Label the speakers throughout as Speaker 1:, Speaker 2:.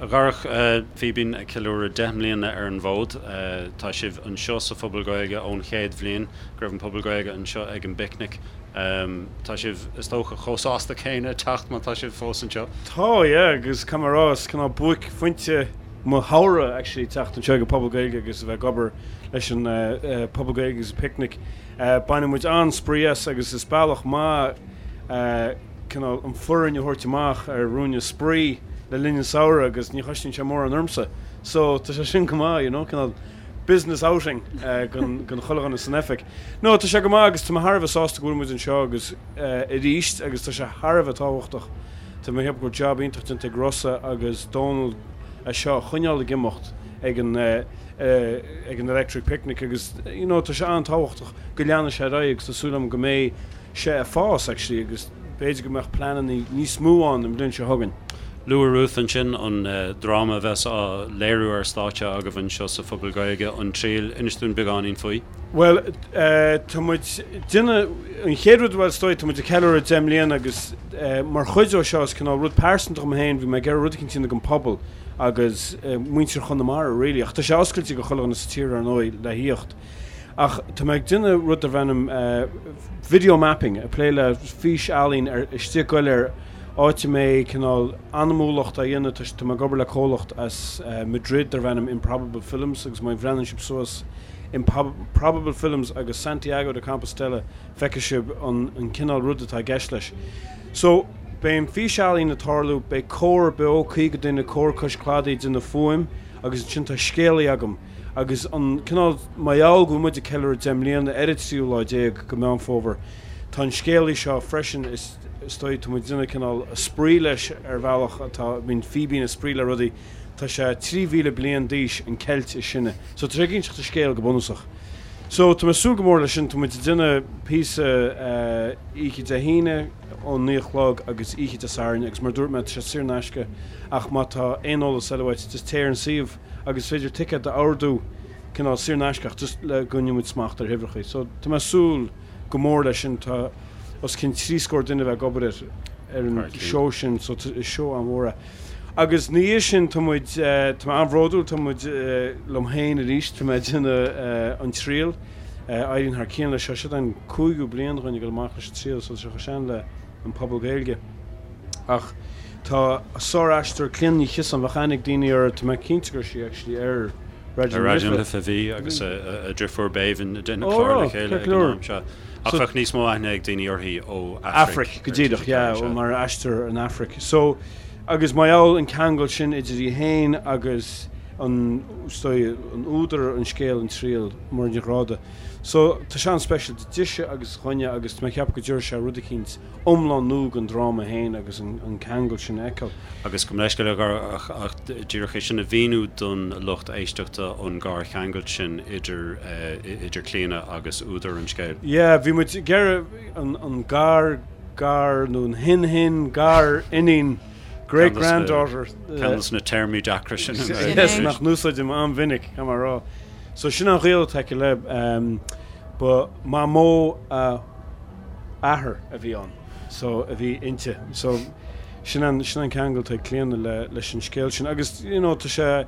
Speaker 1: A Dharach, Fíbín ag ceiliúradh 10 mbliana ar an bhfód. Tá sibh anseo sa Phuball Gaeilge ón chéad bhliain go raibh an Puball Gaeilge anseo ag an bPicnic. Tá sibh, is dócha, chomh sásta céanna teacht má tá sibh fós anseo.
Speaker 2: Tá, yeah, agus caithfidh mé a rá, is cineál buaicphointe mo shamhradh actually teacht anseo ag an Phuball Gaeilge agus a bheith ag obair leis an Phuball Gaeilge agus an Picnic. Baineann muid an-spraoi as agus is bealach maith cineál an foireann a thabhairt amach ar ruainne spraoi le linn an samhradh agus ní chosnaíonn sé mórán ormsa so tá sé sin go maith you know cineál business outing don chuile dhuine san oifig. No tá sé go maith agus tá mé thar a bheith sásta go bhfuil muid anseo agus arís agus tá sé thar a bheith tábhachtach tá mé ag ceapadh go bhfuil job iontach déanta ag Rossa agus Dónal é seo a choinneáil ag imeacht ag an ag an Electric Picnic agus you know tá sé an-tábhachtach go leanfaidh sé ar aghaidh agus tá súil agam go mbeidh sé ag fás actually agus b'fhéidir go mbeadh pleananna níos mó ann an bhliain seo chugainn.
Speaker 1: Luaigh Ruth ansin an dráma a bheas á léiriú ar stáitse agaibh anseo sa Phuball Gaeilge, An Triail. Inis dúinn beagáinín faoi.
Speaker 2: Bhuel, tá muid déanamh, an chéad rud, bhuel is dóigh, tá muid ag ceiliúradh 10 mbliana agus mar chuid ó seo is cineál rud pearsanta dhom féin, bhí mé ag iarraidh rud eicínt a dhéanamh don phobal agus muintir Chonamara really, ach tá sé oscailte go chuile dhuine sa tír ar ndóigh le thíocht. Ach tá mé ag déanamh rud darb ainm video mapping, ag plé le fís-ealaín ar istigh go léir, áit a mbeidh cineál anamúlacht á dhéanamh, tá tá mé ag obair le comhlacht as Madrid darb ainm Improbable Films agus má bhreathnaíonn sibh suas Improbable Films agus Santiago de Compostela feicfidh sibh an an cineál rud atá i gceist leis. So, beidh an fís-ealaín ag tarlú, beidh cór beo, 50 duine, cór cois cladaigh ag déanamh fuaim agus ansin tá scéalaí agam, Agus an cineál, mar gheall go bhfuil muid ag ceiliúradh 10 mbliana ar an tríú lá déag go Meán Fómhair, tá an scéalaí seo freisin, is dóigh, tá muid ag déanamh cineál spraoi leis ar bhealach atá, bíonn Fíbín ag spraoi le rudaí, tá sé 3,000 bliain d'aois, an Ceilt is sine. So tá sé ag inseacht an scéal go bunúsach. So tá mé ag súil go mór leis sin, tá muid ag déanamh píosa oíche Dé hAoine ón 9 a chlog agus oíche Dé Sathairn agus mar a dúirt mé, tá sé saor in aisce ach má tá aon eolas eile uait, just téigh ar an suíomh. agus is féidir ticéad a ordú cineál saor in aisce ach just le go gcoinneoidh muid smacht ar huimhreacha. So tá mé ag súil go mór leis sin, tá os cionn 30 scór duine a bheith ag obair ar ar an seó sin so is seó an-mhór é. Agus ina dhiaidh sin tá muid, tá mé an-bhródúil, tá muid liom féin arís, tá mé ag déanamh An Triail, éiríonn thar cionn leis seo, seo an cúigiú bliain dhúinn ag dul amach leis an Triail so tá sé chomh sean le an Puball Gaeilge. Ach tá sár-aisteoir Clíona Ní Chiosáin, bheadh aithne ag daoine uirthi, tá mé cinnte go raibh sí actually ar
Speaker 1: Raidió na Life. Ar Raidió na Life a bhí agus a driofúr Béibhinn ag déanamh clár le chéile ag an am seo. Ach bheadh níos mó aithne ag daoine uirthi ó
Speaker 2: Aifric. Aifric, go díreach, yeah, mar aisteoir in Aifric. So, agus mar gheall an ceangal sin idir í féin agus an, is dóigh, an údar an scéil, An Triail, Muireann Ní Ghráda. So, tá sé an-speisialta dise agus dhúinne agus tá mé ag ceapadh go dtabharfaidh sé rud eicínt iomlán nua don dráma féin agus an ceangal sin a fheiceáil.
Speaker 1: Agus gabh mo leithscéal ach díreach é sin a mhíniú don lucht éisteachta an garcheangal sin idir idir Clíona agus údar an scéil.
Speaker 2: Yeah, bhí muid ag iarraidh an gar gar nó an shin shin gar iníon great granddaughter.
Speaker 1: Ceann de na téarmaí deacra sin.
Speaker 2: Yes, nach n-úsáidim an-mhinic, caithfidh mé a rá. So sin an gaol atá aici le, ba mamó a athair a bhí ann, so a bhí inti. So sin an, sin an ceangal atá ag Clíona le, leis an scéal sin. Agus, you know, tá sé,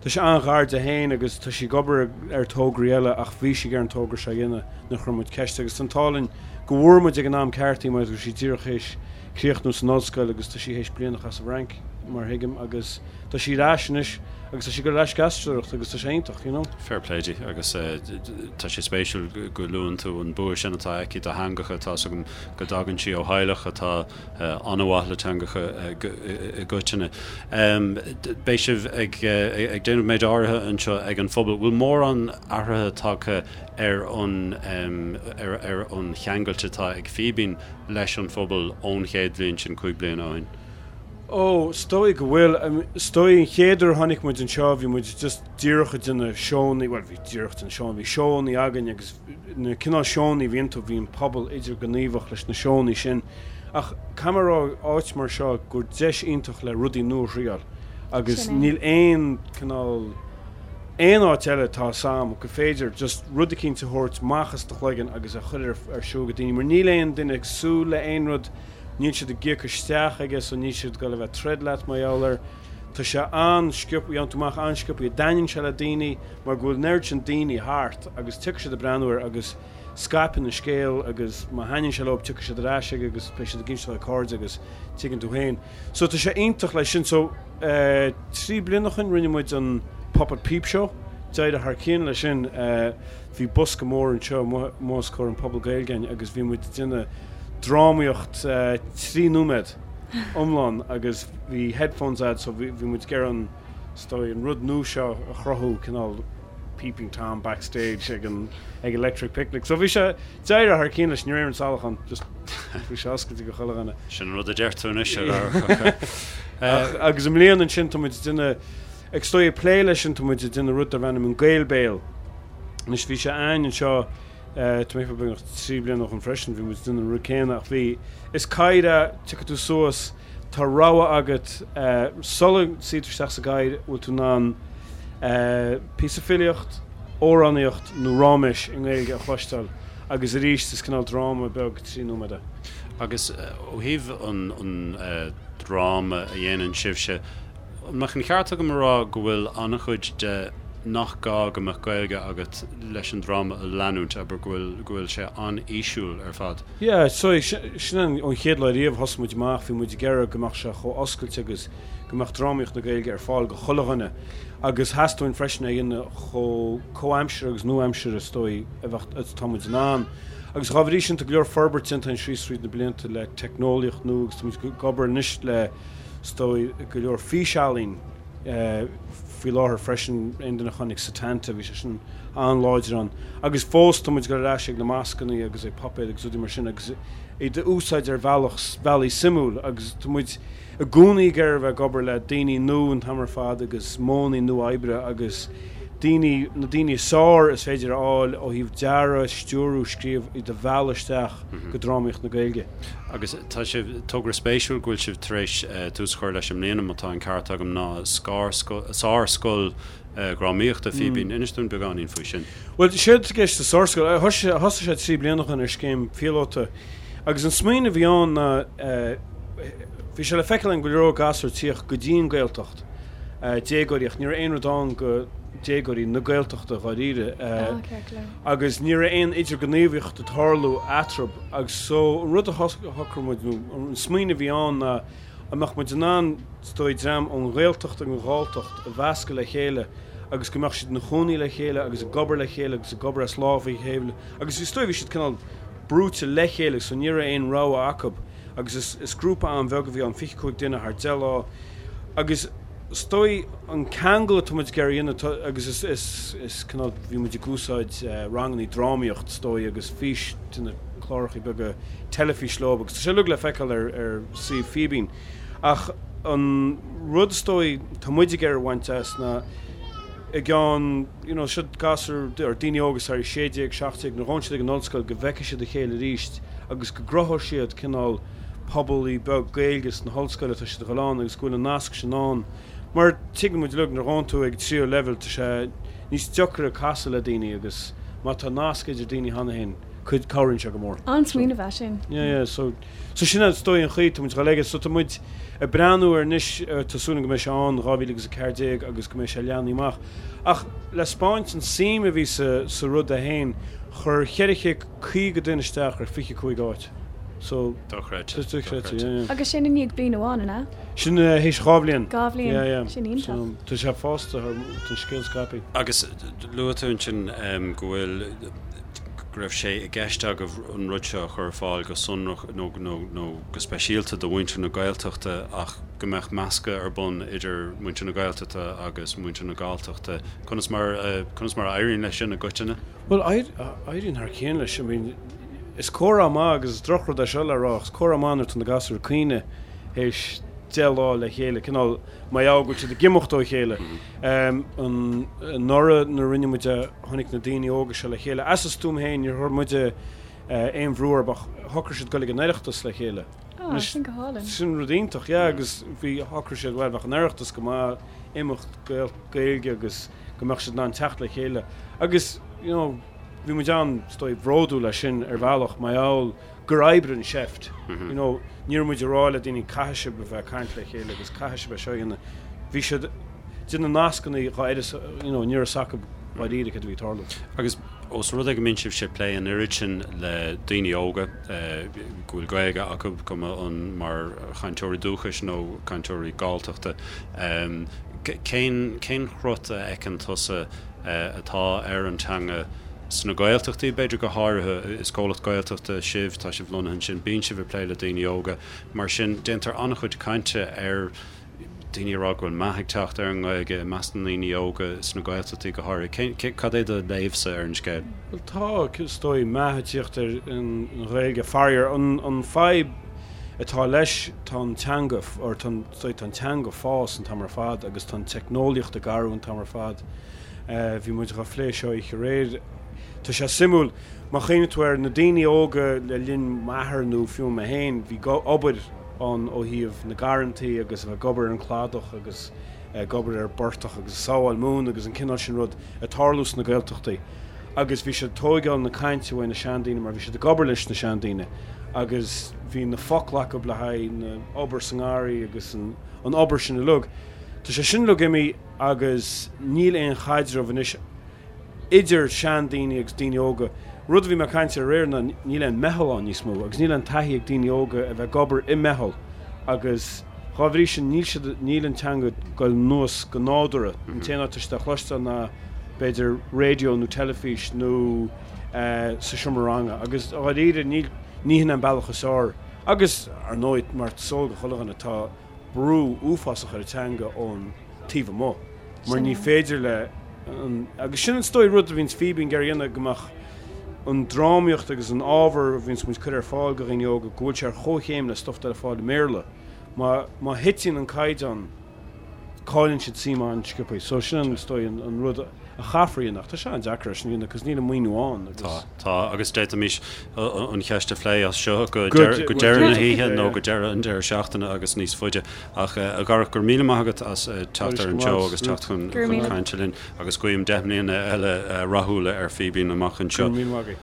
Speaker 2: tá sé an-ghar di féin agus tá sí ag obair ar tograí eile ach bhí sí ag iarraidh an togra seo a dhéanamh nuair a chuir muid ceist agus tá an t-ádh linn go bhfuair muid ag an am ceart í mar go raibh sí díreach théis críochnú san ollscoil agus tá sí théis bliain a chaitheamh sa bhFrainc mar a thuigim agus Tá sí ar ais anois agus tá sí ag dul ar ais ag aisteoireacht agus tá sé iontach, you know.
Speaker 1: Fair play di agus tá sé spéisiúil go luann tú an bua sin atá aici do theangacha, tá's agam go dtagann sí ó theaghlach atá an-mhaith le teangacha i gcoitinne. Beidh sibh ag déanamh méid áirithe anseo ag an Phuball. Bhfuil mórán athraithe tagtha ar an ar an cheangailt atá ag Fíbín leis an phobal ón chéad bhliain sin, 5 bliana ó shin?
Speaker 2: Ó, is dóigh go bhfuil. Is dóigh an chéad uair a tháinig muid anseo bhí muid just díreach ag déanamh seónna, bhuel bhí díreach ag déanamh seónna, bhí seónna againn agus na cineál seónna a bhí iontu, bhí an pobal idirghníomhach leis na seónna sin. Ach caithfidh mé a rá, áit mar seo gur deis iontach le rudaí nua a thriáil agus níl aon cineál, aon áit eile atá 'fhios a'm go féidir just rud eicínt a thabhairt amach as do chloigeann agus a chur ar siúl go daoine mar níl aon duine ag súil le aon rud, Níl siad ag íoc isteach aige so níl siad ag dul a bheith ag troid leat mar gheall air. Tá sé an-sciobtha, gheobhann tú amach an-sciobtha, dtaitníonn sé le daoine mar go bhfuil an oiread sin daoine thart agus tiocfaidh siad ag breathnú air agus scaipeann an scéal agus má thaitníonn sé leo tiocfaidh siad ar ais aige agus beidh siad ag inse dá cairde agus tuigeann tú féin. So tá sé iontach leis sin. So 3 bliana ó shin rinne muid an Puppet Peep Show, d'éirigh thar cionn leis sin. Bhí bosca mór anseo amuigh os comhair an Puball Gaeilge againn agus bhí muid ag déanamh drámaíocht 3 nóiméad iomlán agus bhí headphones a'd so bhí muid ag iarraidh an, is dóigh, an rud nua seo a chruthú, cineál Peeping Tom backstage ag an ag Electric Picnic. So bhí sé, d'éirigh thar cionn leis, ní raibh aon salach ann, just bhí sé oscailte go chuile dhuine.
Speaker 1: Sin an rud a deir tú anois ar
Speaker 2: Ach agus i mbliana ansin tá muid ag déanamh, ag is dóigh ag plé leis sin tá muid ag déanamh rud darb ainm an Gael Béal. Anois bhí sé a'ainn anseo tá mé beagnach 3 bliana ó shin freisin, bhí muid ag déanamh an rud céanna ach bhí, is cathaoir é, tiocfaidh tú suas, tá rogha agat sula suí tú isteach sa gcathaoir, bhfuil tú in ann píosa filíocht, amhránaíocht nó ráiméis i nGaeilge a chloisteáil agus arís is cineál dráma beag 3 nóiméad é.
Speaker 1: Agus ó thaobh an dráma a dhéanann sibhse, An mbeadh an ceart agam a rá go bhfuil an-chuid de nach gá go mbeadh Gaeilge agat leis an dráma a leanúint, abair, go bhfuil, go bhfuil sé an-fhísiúil ar fad?
Speaker 2: Yeah, so sin an ón chéad lá riamh thosaigh muid amach, bhí muid ag iarraidh go mbeadh sé chomh oscailte agus go mbeadh drámaíocht na Gaeilge ar fáil go chuile dhuine agus theastaigh uainn freisin é a dhéanamh chomh comhaimseartha agus nua-aimseartha is dóigh a bheadh, atá muid in ann. Agus dá bhrí sin tá go leor forbairt déanta againn síos fríd na blianta le teicneolaíocht nua agus tá muid ag obair anois le is dóigh, go leor físealaín faoi láthair freisin, aon duine a chonaic Setanta, bhí sé sin an-láidir ann. Agus fós tá muid ag dul ar ais ag na mascannaí agus ag puipéid agus rudaí mar sin agus iad a úsáid ar bhealach, bealaí suimiúil agus tá muid i gcónaí ag iarraidh a bheith ag obair le daoine nua an t-am ar fad agus modhanna nua oibre agus daoine, na daoine is fearr is féidir a fháil ó thaobh dearadh, stiúrú, scríobh, iad a mhealladh isteach go drámaíocht na Gaeilge.
Speaker 1: Agus tá sé, togra spéisiúil go bhfuil sibh tar éis tús a chur leis i mbliana, má tá an ceart agam, ná Sárscoil Dhrámaíochta Fíbín. Inis dúinn beagáinín faoi sin.
Speaker 2: Bhuel, séard atá i gceist sa Sárscoil, thosaigh sé 3 bliana ó shin ar scéim phíolóta agus an smaoineamh a bhí ann ná, bhí sé le feiceáil againn go leor gasúr ag tíocht go dtí an Ghaeltacht, déagóirí, ach ní raibh aon rud ann go déagóirí na Gaeltachta dháiríre. Agus ní raibh aon idirghníomhaíocht ag tarlú eatarthu agus so an rud a shocraigh muid nó an smaoineamh a bhí ann ná an mbeadh muid in ann is dóigh dream ón Ghaeltacht agus an Ghalltacht a mheascadh le chéile agus go mbeadh siad ina chónaí le chéile agus ag obair le chéile agus ag obair as lámh a chéile agus is dóigh bhí siad cineál brúite le chéile so ní raibh aon rogha acu agus is is grúpa an-bheag a bhí ann, 25 duine thar 10 lá agus is dóigh an ceangal atá muid ag iarraidh a dhéanamh agus is is is cineál bhí muid ag úsáid rangannaí drámaíocht is dóigh agus fís de na clárachaí beaga teilifís leo agus tá sé uilig le feiceáil ar ar suíomh Fíbín ach an rud is dóigh tá muid ag iarraidh a bhaint as ná i gceann you know seo gasúir or daoine óga sorry 16, 17 nuair a ghabhann siad ag an ollscoil go bhfeicfidh siad a chéile arís agus go gcruthóidh siad cineál pobalaí beag Gaeilge sna hollscoil atá siad a dhul ann agus go bhfuil an nasc sin ann. Mar tuigeann muid uilig nuair a ghabhann tú ag tríú leibhéal tá sé níos deacra casadh le daoine agus má tá nasc idir daoine cheana féin cuid cabhraíonn sé go mór.
Speaker 3: An-smaoineamh é sin.
Speaker 2: Yeah yeah so so sin is dóigh an chaoi tá muid ag dul aige so tá muid ag breathnú air anois tá súil agam go mbeidh sé ann 2014 agus go mbeidh sé leathnaithe amach. Ach le spáint an suim a bhí sa sa rud é féin chuir 450 duine isteach ar 25 áit. So,
Speaker 1: Dochreidte. Dochreidte,
Speaker 3: yeah, yeah. Agus sin i ndiaidh bliain amháin, an ea?
Speaker 2: Sin théis dhá bhliain.
Speaker 3: Dhá bhliain. Yeah, yeah. Sin iontach.
Speaker 2: So, tá sé fásta thar, tá an scéal scaipthe.
Speaker 1: Agus luaigh tú ansin go bhfuil, go raibh sé i gceist agaibh an rud seo a chur ar fáil go sonrach nó, nó, nó go speisialta do mhuintir na Gaeltachta ach go mbeadh meascadh ar bun idir muintir na Gaeltachta agus muintir na Galltachta. Conas mar, conas mar a éiríonn leis sin i gcoitinne?
Speaker 2: Bhuel, éiríonn thar cionn leis. I mean, Is comhartha maith, agus is drochrud é seo le rá, ach is comhartha maith nuair atá na gasúir ag caoineadh théis 10 lá le chéile, cineál mar gheall go bhfuil siad ag imeacht ó chéile. Anuraidh nuair a rinne muid é, tháinig na daoine óga seo le chéile. As a stuaim féin, níor chuir muide aon bhrú orthu ach shocraigh siad dul ag an Oireachtas le chéile.
Speaker 3: Ah, sin go hálainn.
Speaker 2: Sin rud iontach, yeah, agus bhí, shocraigh siad, bhuel, bheadh an Oireachtas go maith, imeacht Gaeilge agus go mbeadh siad in ann teacht le chéile. Agus, you know, Bhí muid an, is dóigh, bhródúil as sin ar bhealach, mar gheall gur oibrigh an seift. You know, ní raibh muid ag rá le daoine caithfidh sibh a bheith ag caint le chéile agus caithfidh sibh é seo a dhéanamh. Bhí siad déanamh nascanna dhá oiread, you know, ní raibh fhios acu dháiríre céard a bhí ag tarlú.
Speaker 1: Agus ós rud é go mbíonn sibhse ag plé an oiread sin le daoine óga go bhfuil Gaeilge acu, cuma an mar chainteoirí dúchais nó cainteoirí Galltachta, cén cén chrot a fheiceann tusa atá ar an teanga sna Gaeltachtaí, b'fhéidir go háirithe? Is comhlacht Gaeltachta sibh, tá sibh lonnaithe ansin, bíonn sibh ag plé le daoine óga, mar sin déantar an-chuid cainte ar daoine ag rá go bhfuil meath ag teacht ar an nGaeilge i measc na ndaoine óga sna Gaeltachtaí go háirithe. Cén, cad é do léamhsa ar an scéal?
Speaker 2: Bhuel tá, is dóigh, meath ag tíocht ar an Ghaeilge. Faraor, an, an fadhb atá leis, tá an teanga, or tá an, is dóigh, tá an teanga ag fás an t-am ar fad agus tá an teicneolaíocht ag athrú an t-am ar fad. Bhí muid dhá phlé seo oíche aréir. Tá sé suimiúil, má chuimhníonn tú ar na daoine óga le linn m'athar nó fiú mé féin, bhí obair, ann ó thaobh na garrantaí agus a bheith ag obair ar an cladach agus ag obair ar an bportach agus ag sábháil móna agus an cineál sin rud ag tarlú sna Gaeltachtaí agus bhí siad ag tóigeáil na cainte uaidh na seandaoine mar bhí siad ag obair leis na seandaoine agus bhí na focla acu le haghaidh na obair sa ngarraí agus an obair sin uilig. Tá sé sin uilig imithe agus níl aon chaidreamh anois idir seandaoine agus daoine óga. Rud a bhí mé ag caint air aréir ná níl aon meitheal ann níos mó agus níl aon taithí ag daoine óga a bheith ag obair i meitheal agus dhá bhrí sin níl siad, níl an teanga ag goil anuas go nádúrtha. An t-aon áit atá siad á chloisteáil ná b'fhéidir raidió nó teilifís nó sa seomra ranga agus dháiríre níl, ní hin an bealach is fearr. Agus ar ndóigh mar is eol do chuile dhuine tá brú uafásach ar an teanga ón taobh amuigh mar ní féidir le an, agus sin is dóigh rud a bhíonns Fíbín ag iarraidh a dhéanamh go mbeadh an drámaíocht agus an ábhar a bhíonns muid cur ar fáil go dhaoine óga go bhfuil sé ar chomhchéim le stuff atá ar fáil i mBéarla. Má má thiteann an caighdeán cailleann siad suim an-sciobtha. So sin is dóigh an rud a chaithfear a dhéanamh ach tá sé an-deacair é sin a dhéanamh cos níl an maoiniú ann agus.
Speaker 1: Tá, tá agus d'fhéadfaimis an cheist a phlé as seo go deireadh na hoíche nó go deireadh an deireadh seachtaine agus níos faide. Ach a Dharach, go raibh míle maith agat as teacht ar an seó agus teacht chun cainte linn agus guím 10 mbliana eile rathúla ar Fíbín amach anseo.
Speaker 2: Go raibh míle maith agat.